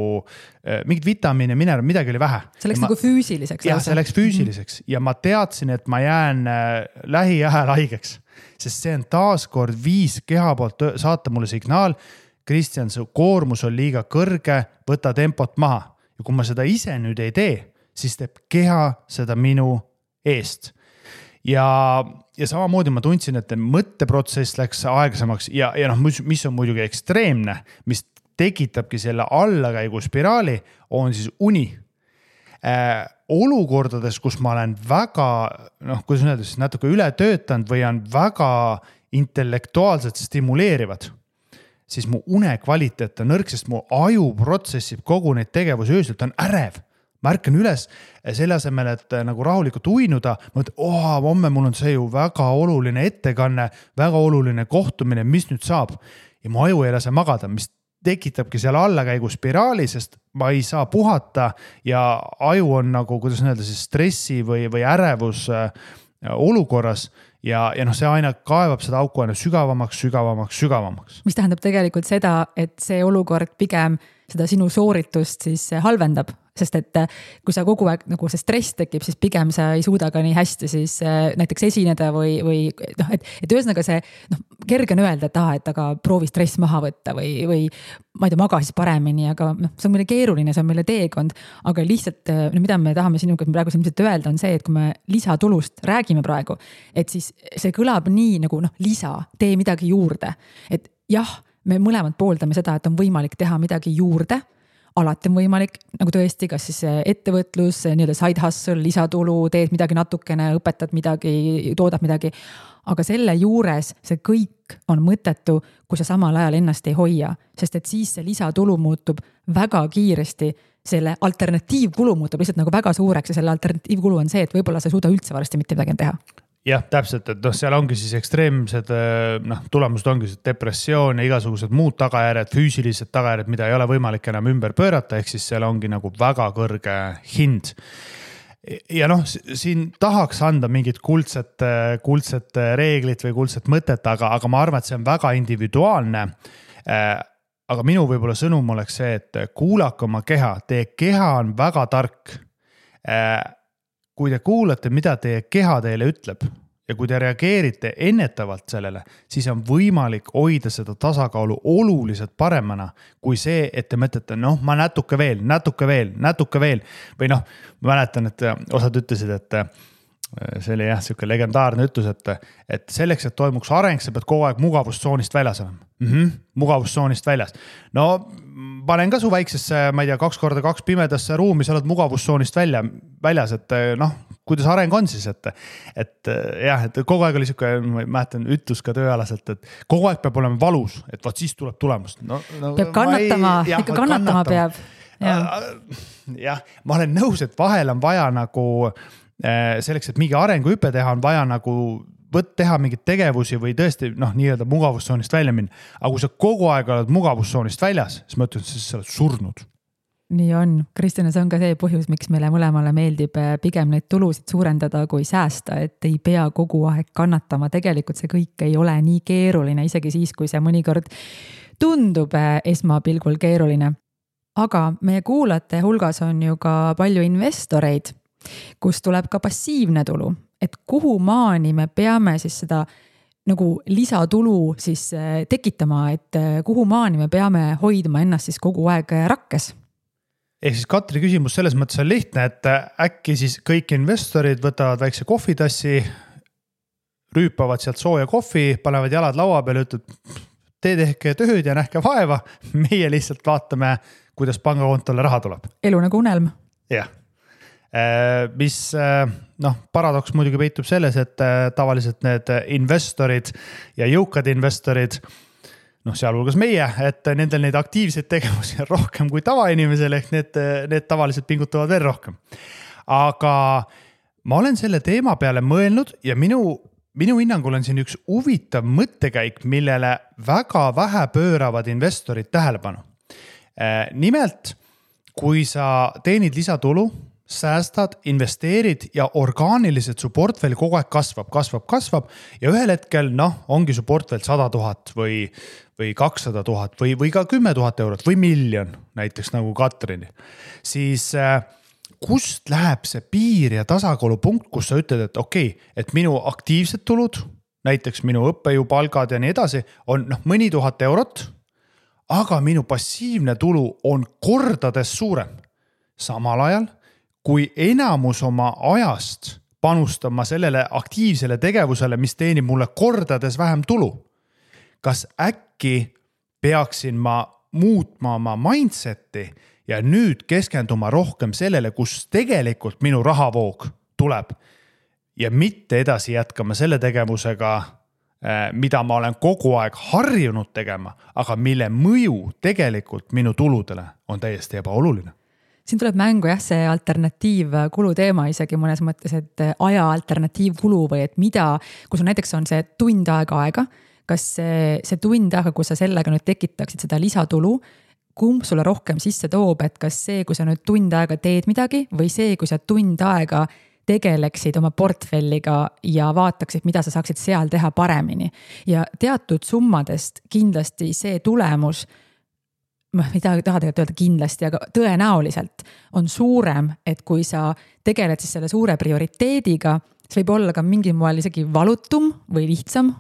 mingid vitamiine, mineral, midagi oli vähe. See läks nagu füüsiliseks. Jah, see läks füüsiliseks ja ma teadsin, et ma jään lähiajal haigeks. Sest see on taaskord viis keha poolt saata mulle signaal, Kristjan, su koormus on liiga kõrge, võta tempot maha. Ja kui ma seda ise nüüd ei tee, siis teeb keha seda minu eest. Ja samamoodi ma tundsin, et mõtteprotsess läks aeglasemaks ja mis on muidugi ekstreemne, mis tekitabki selle allakäigu spiraali, on siis uni. Olukordades, kus ma olen väga, kuidas öelda, siis natuke üle töötanud või on väga intellektuaalselt stimuleerivad, siis mu une kvaliteet on nõrk, sest mu aju protsessib kogu neid tegevusi öösel, ta on ärev. Ma ärkan üles selle asemel, et nagu rahulikult uinuda, ma mõtlen, homme mul on see ju väga oluline ettekanne, väga oluline kohtumine, mis nüüd saab. Ja mu aju ei lase magada, mis tekitabki seal allakäigu spiraali, sest ma ei saa puhata ja aju on nagu, kuidas öelda, siis stressi või ärevus olukorras ja see aina kaevab seda auku aina sügavamaks. Mis tähendab tegelikult seda, et see olukord pigem seda sinu sooritust siis halvendab, sest et kui sa kogu aeg nagu see stress tekib, siis pigem sa ei suuda ka nii hästi siis näiteks esineda või et ühesõnaga see kerge on öelda, et aga proovi stress maha võtta või ma ei tea, maga siis paremini, aga see on meile keeruline, see on meile teekond, aga lihtsalt mida me tahame sinuga praegu ilmselt öelda on see, et kui me lisatulust räägime praegu, et siis see kõlab nii nagu lisa, tee midagi juurde, et jah, me mõlemad pooldame seda, et on võimalik teha midagi juurde, alati on võimalik nagu tõesti, kas siis ettevõtlus, nii-öelda side hustle, lisatulu, teed midagi natukene, õpetad midagi, toodad midagi. Aga selle juures see kõik on mõttetu, kui sa samal ajal ennast ei hoia, sest et siis see lisatulu muutub väga kiiresti, selle alternatiivkulu muutub lihtsalt nagu väga suureks ja selle alternatiivkulu on see, et võib-olla sa ei suuda üldse varsti mitte midagi teha. Jah, täpselt, et seal ongi siis ekstreemsed tulemused ongi depressioon ja igasugused muud tagajärjed, füüsilised tagajärjed, mida ei ole võimalik enam ümber pöörata, ehk siis seal ongi nagu väga kõrge hind. Ja siin tahaks anda mingit kuldset reeglit või kuldset mõtet, aga ma arvan, et see on väga individuaalne. Aga minu võib-olla sõnum oleks see, et kuulake oma keha, teie keha on väga tark. Kui te kuulate, mida teie keha teile ütleb ja kui te reageerite ennetavalt sellele, siis on võimalik hoida seda tasakaalu oluliselt paremana kui see, et te mõtlete, ma natuke veel. Või ma mäletan, et osad ütlesid, et see oli siuke legendaarne ütlus, et selleks, et toimuks areng, sa pead kogu aeg mugavustsoonist väljas olema. Mugavustsoonist väljas. Panen ka su väiksesse, ma ei tea, 2x2 pimedasse ruumi, sa oled mugavustsoonist väljas, et kuidas areng on siis, et kogu aeg oli siuke, ma mäletan, ütlus ka tööalaselt, et kogu aeg peab olema valus, et vaat siis tuleb tulemust. Peab kannatama, ikka kannatama peab. Jah, ma olen nõus, et vahel on vaja nagu selleks, et mingi arenguhüpe teha, on vaja nagu teha mingeid tegevusi või tõesti nii-öelda mugavustsoonist välja minna. Aga kui sa kogu aeg oled mugavustsoonist väljas, siis ma ütlen, et sa oled surnud. Nii on. Kristjan, see on ka see põhjus, miks meile mõlemale meeldib pigem neid tulusid suurendada kui säästa, et ei pea kogu aeg kannatama. Tegelikult see kõik ei ole nii keeruline, isegi siis, kui see mõnikord tundub esmapilgul keeruline. Aga meie kuulajate hulgas on ju ka palju investoreid, kus tuleb ka passiivne tulu. Et kuhu maani me peame siis seda nagu lisatulu siis tekitama, et kuhu maani me peame hoidma ennast siis kogu aeg rakkes? Ehk siis Katri küsimus selles mõttes on lihtne, et äkki siis kõik investorid võtavad väikse kohvitassi, rüüpavad sealt sooja kohvi, panevad jalad laua peale, ütlevad, te tehke tööd ja nähke vaeva, meie lihtsalt vaatame, kuidas pangakontole raha tuleb. Elu nagu unelm. Jah. Mis paradoks muidugi peitub selles, et tavaliselt need investorid ja jõukad investorid, sealhulgas meie, et nendel neid aktiivseid tegevusi on rohkem kui tavainimesel, ehk need tavaliselt pingutavad veel rohkem. Aga ma olen selle teema peale mõelnud ja minu hinnangul on siin üks huvitav mõttekäik, millele väga vähe pööravad investorid tähelepanu. Nimelt, kui sa teenid lisatulu, säästad, investeerid ja orgaaniliselt su portfell kogu aeg kasvab ja ühel hetkel, ongi su portfell 100 000 või 200 000 või ka 10 000 eurot või miljon, näiteks nagu Katrini, siis kust läheb see piir ja tasakaalupunkt, kus sa ütled, et okei, et minu aktiivsed tulud, näiteks minu õppejõupalgad ja nii edasi, on mõni 1000 eurot, aga minu passiivne tulu on kordades suurem. Samal ajal, kui enamus oma ajast panustama sellele aktiivsele tegevusele, mis teenib mulle kordades vähem tulu. Kas äkki peaksin ma muutma oma mindseti ja nüüd keskenduma rohkem sellele, kus tegelikult minu rahavoog tuleb ja mitte edasi jätkama selle tegevusega, mida ma olen kogu aeg harjunud tegema, aga mille mõju tegelikult minu tuludele on täiesti ebaoluline. Siin tuleb mängu see alternatiivkulu teema isegi mõnes mõttes, et aja alternatiivkulu või et mida, kui sul näiteks on see tund aega, kas see tund aega, kui sa sellega nüüd tekitaksid seda lisatulu, kumb sulle rohkem sisse toob, et kas see, kui sa nüüd tund aega teed midagi või see, kui sa tund aega tegeleksid oma portfelliga ja vaataksid, mida sa saaksid seal teha paremini. Ja teatud summadest kindlasti see tulemus, ma ei taha tegelikult öelda kindlasti, aga tõenäoliselt on suurem, et kui sa tegeled siis selle suure prioriteediga, see võib olla ka mingil moel isegi valutum või lihtsam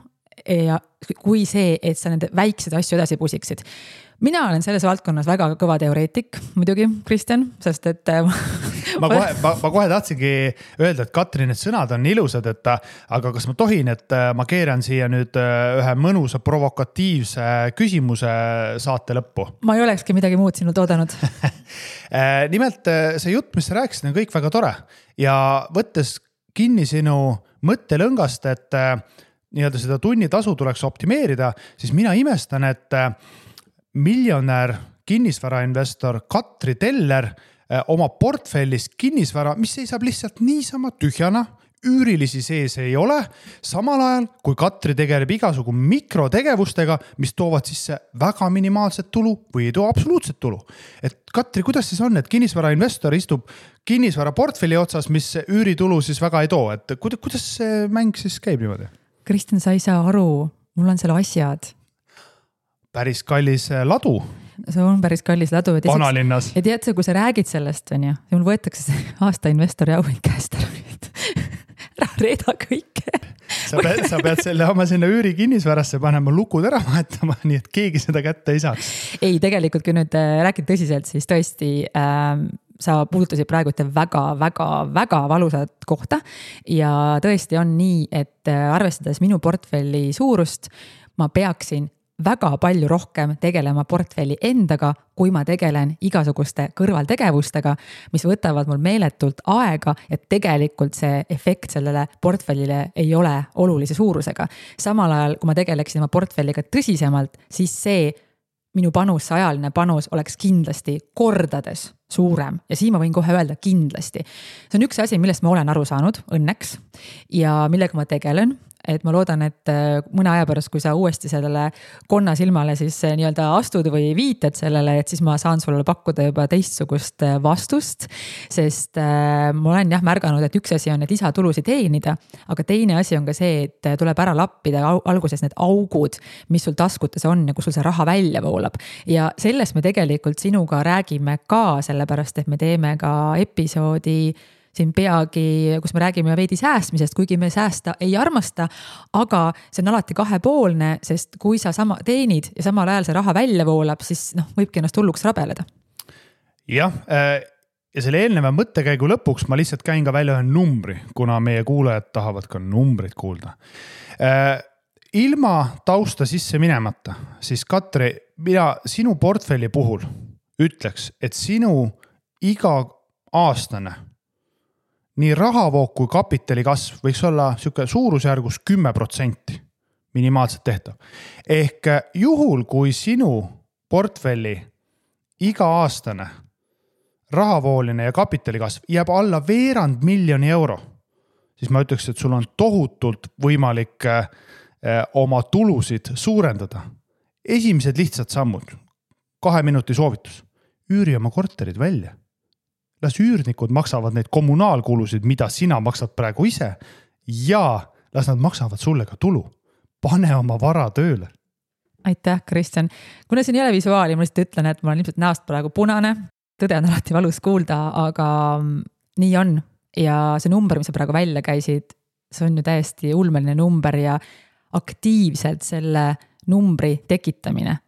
ja kui see, et sa nende väikseid asju edasi pusiksid. Mina olen selles valdkonnas väga kõva teoreetik, muidugi, Kristjan, sest et ma kohe tahtsingi öelda, et Katri, need sõnad on ilusad, aga kas ma tohin, et ma keeran siia nüüd ühe mõnusa provokatiivse küsimuse saate lõppu? Ma ei olekski midagi muud sinult oodanud. Nimelt see jutt, mis sa rääkisid, on kõik väga tore ja võttes kinni sinu mõttelõngast, et nii-öelda seda tunnitasu tuleks optimeerida, siis mina imestan, et miljonär kinnisvarainvestor Katri Teller oma portfellis kinnisvara, mis seisab lihtsalt niisama tühjana, üürilisi sees ei ole, samal ajal kui Katri tegeleb igasugu mikrotegevustega, mis toovad sisse väga minimaalset tulu või ei too absoluutset tulu. Et Katri, kuidas siis on, et kinnisvarainvestor istub kinnisvara portfelli otsas, mis üüritulu siis väga ei too, et kuidas see mäng siis käib niimoodi? Kristjan, sa ei saa aru, mul on seal asjad. Päris kallis ladu. See on päris kallis ladu. Vanalinnas. Ja tead sa, kui sa räägid sellest, on ju, mul võetakse see aasta investori auhind käest ära. Reeda kõike. Sa pead selle oma sinna üüri kinnisvarasse panema, lukud ära vahetama, nii et keegi seda kätte ei saaks. Ei, tegelikult kui nüüd räägid tõsiselt, siis tõesti sa puudutasid praegu väga valusat kohta ja tõesti on nii, et arvestades minu portfelli suurust, ma peaksin väga palju rohkem tegelema portfelli endaga, kui ma tegelen igasuguste kõrvaltegevustega, mis võtavad mul meeletult aega, et tegelikult see efekt sellele portfellile ei ole olulise suurusega. Samal ajal, kui ma tegeleksin oma portfelliga tõsisemalt, siis see minu panus, see ajaline panus oleks kindlasti kordades suurem ja siin ma võin kohe öelda kindlasti. See on üks asi, millest ma olen aru saanud õnneks ja millega ma tegelen. Et ma loodan, et mõne aja pärast, kui sa uuesti sellele konna silmale siis nii-öelda astud või viited sellele, et siis ma saan sulle pakkuda juba teistsugust vastust, sest ma olen märganud, et üks asi on need lisatulusid teenida, aga teine asi on ka see, et tuleb ära lappida alguses need augud, mis sul taskutes on ja kus sul see raha välja voolab. Ja sellest me tegelikult sinuga räägime ka, sellepärast, et me teeme ka episoodi siin peagi, kus me räägime veidi säästmisest, kuigi me säästa ei armasta, aga see on alati kahepoolne, sest kui sa sama teenid ja samal ajal see raha välja voolab, siis võibki ennast hulluks rabeleda. Jah, ja selle eelneva mõttekäigu lõpuks ma lihtsalt käin ka välja ühe numbri, kuna meie kuulajad tahavad ka numbrit kuulda. Ilma tausta sisse minemata, siis Katri, mina sinu portfelli puhul ütleks, et sinu iga aastane nii rahavoog kui kapitali kasv võiks olla suurusjärgus 10% minimaalselt tehtav. Ehk juhul, kui sinu portfelli iga aastane rahavooline ja kapitali kasv jääb alla 200 000 euro, siis ma ütleks, et sul on tohutult võimalik oma tulusid suurendada. Esimesed lihtsad sammud, 2 minuti soovitus, üüri oma korterid välja. Las üürnikud maksavad neid kommunaalkulusid, mida sina maksad praegu ise ja las nad maksavad sulle ka tulu. Pane oma vara tööle. Aitäh, Kristjan. Kuna siin ei ole visuaali, ma lihtsalt ütlen, et ma olen ilmselt näost praegu punane. Tõde on alati valus kuulda, aga nii on. Ja see number, mis sa praegu välja käisid, see on ju täiesti ulmeline number ja aktiivselt selle numbri tekitamine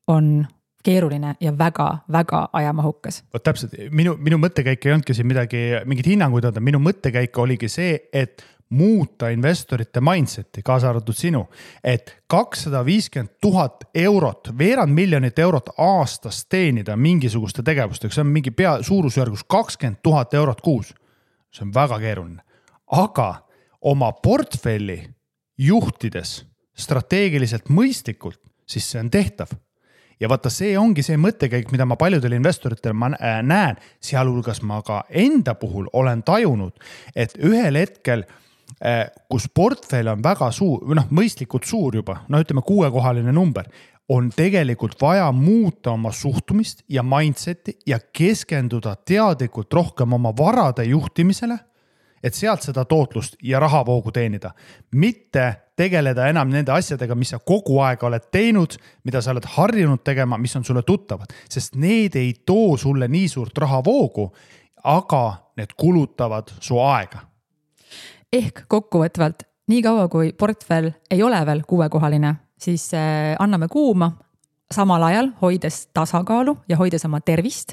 on keeruline ja väga ajamahukas. Täpselt, minu mõttekäik ei olnudki siin mingid hinnanguid anda. Minu mõttekäik oligi see, et muuta investorite mindseti, kaasa arvatud sinu, et 250 000 eurot, 200 000 eurot aastas teenida mingisuguste tegevustega, see on mingi suurusjärgus 20 000 eurot kuus. See on väga keeruline. Aga oma portfelli juhtides strateegiliselt mõistlikult, siis see on tehtav. Ja vaata, see ongi see mõttekäik, mida ma paljudel investoritel näen, sealhulgas ma ka enda puhul olen tajunud, et ühel hetkel, kus portfell on väga suur, mõistlikult suur juba, ütleme 6-kohaline number, on tegelikult vaja muuta oma suhtumist ja mindseti ja keskenduda teadlikult rohkem oma varade juhtimisele, et sealt seda tootlust ja rahavoogu teenida. Mitte tegeleda enam nende asjadega, mis sa kogu aeg oled teinud, mida sa oled harjunud tegema, mis on sulle tuttavad. Sest need ei too sulle nii suurt rahavoogu, aga need kulutavad su aega. Ehk kokkuvõtvalt, nii kaua kui portfell ei ole veel 6-kohaline, siis anname kuuma, samal ajal hoides tasakaalu ja hoides oma tervist.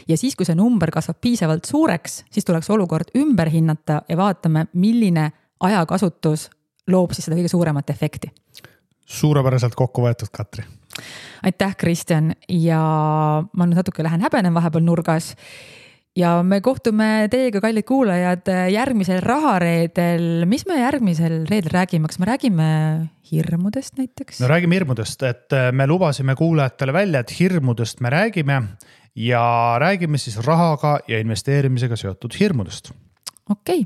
Ja siis, kui see number kasvab piisavalt suureks, siis tuleks olukord ümber hinnata ja vaatame, milline ajakasutus loob siis seda kõige suuremat efekti. Suurepäraselt kokku võetud, Katri. Aitäh, Kristjan. Ja ma nüüd natuke lähen häbenen vahepeal nurgas. Ja me kohtume teiega, kallid kuulajad, järgmisel rahareedel. Mis me järgmisel reedel räägime? Kas me räägime hirmudest näiteks? No räägime hirmudest, et me lubasime kuulajatele välja, et hirmudest me räägime ja räägime siis rahaga ja investeerimisega seotud hirmudest. Okei,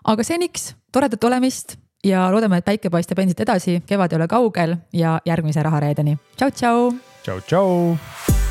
aga seniks toredat olemist ja loodame, et päike paistab endiselt edasi, kevad ei ole kaugel ja järgmise rahareedeni. Tšau, tšau! Tšau, tšau!